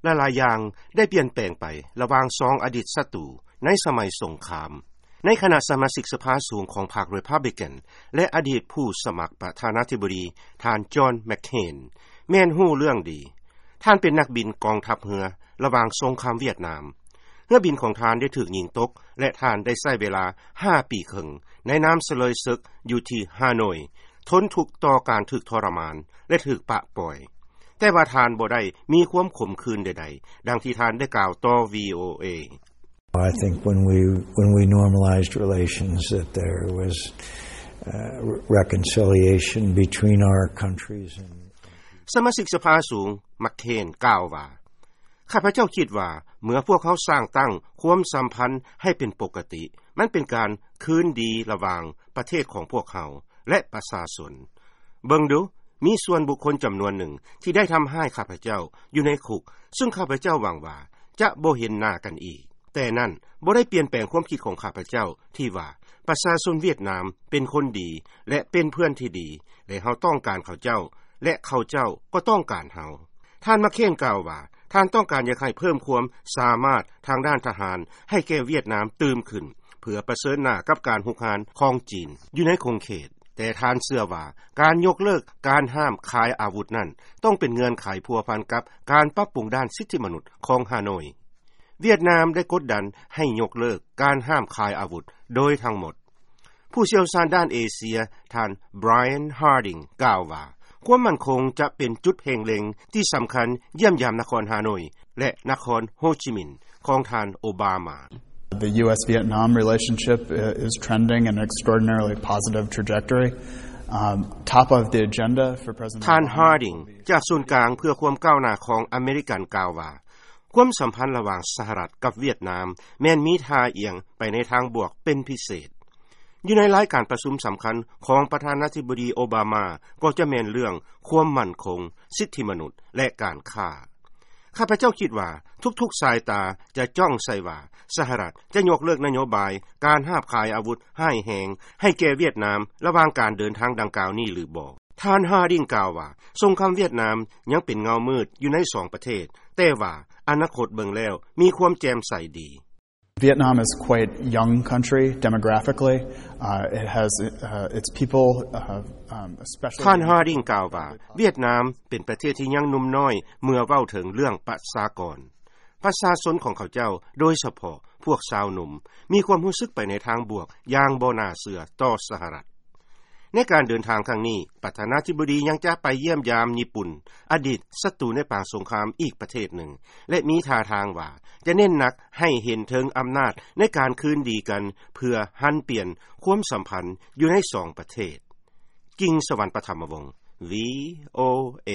ຫຼາຍໆຢ່າງໄດ້ປ່ຽນແປງໄປລະຫວ່າງສອງອະດີດສັດຕູໃນສະໄໝສົງຄາມ. ໃນຂະນະສະມາຊິກສະພາສູງຂອງພັກ Republican ແລະ ອະດີດຜູ້ສະໝັກປະທານາທິບໍດີ ທ່ານ John McCain ແມ່ນຮູ້ເລື່ອງດີ. ທ່ານເປັນນັກບິນກອງທັບເຮືອລະຫວ່າງສົງຄາມຫວຽດນາມ. ເຮືອບິນຂອງທ່ານໄດ້ຖືກຍິງຕົກ ແລະ ທ່ານໄດ້ໃຊ້ເວລາຫ້າປີເຄິ່ງໃນນ້ຳສະເລີຍເສິກຢູ່ທີ່ຮາໂນຍ, ທົນທຸກຕໍ່ການຖືກທໍລະມານ ແລະ ຖືກປະປ່ອຍ. ແຕ່ວ່າທ່ານບໍ່ໄດ້ມີຄວາມຂົມຂື່ນໃດໆ ດັ່ງທີ່ທ່ານໄດ້ກ່າວຕໍ່ VOA. I think when we, when we normalized relations, that there was, uh, reconciliation between our countries and ສະມາຊິກສະພາສູງ McCain ກ່າວວ່າ, ຂ້າພະເຈົ້າຄິດວ່າເມື່ອພວກເຮົາສ້າງຕັ້ງຄວາມສຳພັນໃຫ້ເປັນປົກກະຕິ, ມັນເປັນການຄືນດີລະຫວ່າງປະເທດຂອງພວກເຮົາ ແລະ ປະຊາຊົນ. ເບິ່ງດູ, ມີສ່ວນບຸກຄົນຈຳນວນໜຶ່ງທີ່ໄດ້ທຳຮ້າຍຂ້າພະເຈົ້າຢູ່ໃນຄຸກ, ຊຶ່ງຂ້າພະເຈົ້າຫວັງວ່າຈະບໍ່ເຫັນໜ້າກັນອີກ. ແຕ່ນັ້ນບໍ່ໄດ້ປ່ຽນແປງຄວາມຄິດຂອງຂ້າພະເຈົ້າທີ່ວ່າປະຊາຊົນຫວຽດນາມເປັນຄົນດີ ແລະ ເປັນເພື່ອນທີ່ດີ, ແລະ ເຮົາຕ້ອງການເຂົາເຈົ້າ ແລະ ເຂົາເຈົ້າກໍຕ້ອງການເຮົາ. ທ່ານ McCain ກ່າວວ່າ ທ່ານຕ້ອງການຢາກໃຫ້ເພີ່ມຄວາມສາມາດທາງດ້ານທະຫານໃຫ້ແກ່ຫວຽດນາມຕື່ມຂຶ້ນ ເພື່ອປະເຊີນໜ້າກັບການຮຸກຮານຂອງຈີນຢູ່ໃນຂົງເຂດ. ແຕ່ທ່ານເຊື່ອວ່າການຍົກເລີກການຫ້າມຂາຍອາວຸດນັ້ນ ຕ້ອງເປັນເງື່ອນໄຂພົວພັນກັບການປັບປຸງດ້ານສິດທິມະນຸດຂອງຮາໂນຍ. ຫວຽດນາມໄດ້ກົດດັນໃຫ້ຍົກເລີກການຫ້າມຂາຍອາວຸດໂດຍທັງໝົດ. ຜູ້ຊ່ຽວຊານດ້ານເອເຊຍ ທ່ານ Brian Harding ກ່າວວ່າ ຄວາມໝັ້ນຄົງຈະເປັນຈຸດເພງເລັງທີ່ສຳຄັນຢ້ຽມຢາມນະຄອນຮາໂນຍ ແລະ ນະຄອນໂຮຈິມິນ ຂອງທ່ານໂອບາມາ. The U S Vietnam relationship is trending in an extraordinarily positive trajectory. Um, top of the agenda for President ທ່ານ Obama Harding ຈາກສູນກາງເພື່ອຄວາມກ້າວໜ້າຂອງອາເມລິກັນກ່າວວ່າ ຄວາມສຳພັນລະຫວ່າງສະຫະລັດກັບຫວຽດນາມແມ່ນມີທ່າອຽງໄປໃນທາງບວກເປັນພິເສດ. ຢູ່ໃນລາຍການປະຊຸມສຳຄັນຂອງປະທານາທິບໍດີໂອບາມາ ກໍຈະແມ່ນເລື່ອງຄວາມໝັ້ນຄົງ, ສິດທິມະນຸດ ແລະ ການຄ້າ. ຂ້າພະເຈົ້າຄິດວ່າທຸກໆສາຍຕາຈະຈ້ອງໃສ່ວ່າສະຫະລັດຈະຍົກເລີກນະໂຍບາຍການຫ້າມຂາຍອາວຸດຮ້າຍແຮງໃຫ້ແກ່ຫວຽດນາມລະຫວ່າງການເດີນທາງດັ່ງກ່າວນີ້ຫຼືບໍ່. ທ່ານ Harding ກ່າວວ່າ ສົງຄາມຫວຽດນາມຍັງເປັນເງົາມືດຢູ່ໃນສອງປະເທດ, ແຕ່ວ່າອະນາຄົດເບິ່ງແລ້ວມີຄວາມແຈ່ມໃສດີ. Vietnam is quite young country demographically. Uh, it has, uh, its people, uh, um, especially ທ່ານ Harding ກ່າວວ່າ ຫວຽດນາມເປັນປະເທດທີ່ຍັງໜຸ່ມນ້ອຍເມື່ອເວົ້າເຖິງເລື່ອງປະຊາກອນ. ປະຊາຊົນຂອງເຂົາເຈົ້າ, ໂດຍສະເພາະພວກຊາວໜຸ່ມ, ມີຄວາມຮູ້ສຶກໄປໃນທາງບວກຢ່າງບໍ່ໜ້າເຊື່ອຕໍ່ສະຫະລັດ. ໃນການເດີນທາງຄັ້ງນີ້, ປະທານາທິບໍດີຍັງຈະໄປຢ້ຽມຢາມຍີ່ປຸ່ນ, ອະດີດສັດຕູໃນປາງສົງຄາມອີກປະເທດໜຶ່ງ ແລະ ມີທ່າທາງວ່າຈະເນັ້ນໜັກໃຫ້ເຫັນເຖິງອຳນາດໃນການຄືນດີກັນ ເພື່ອຫັນປ່ຽນຄວາມສຳພັນຢູ່ໃນສອງປະເທດ. ກິ່ງສະຫວັນ ປະຖຳມະວົງ VOA.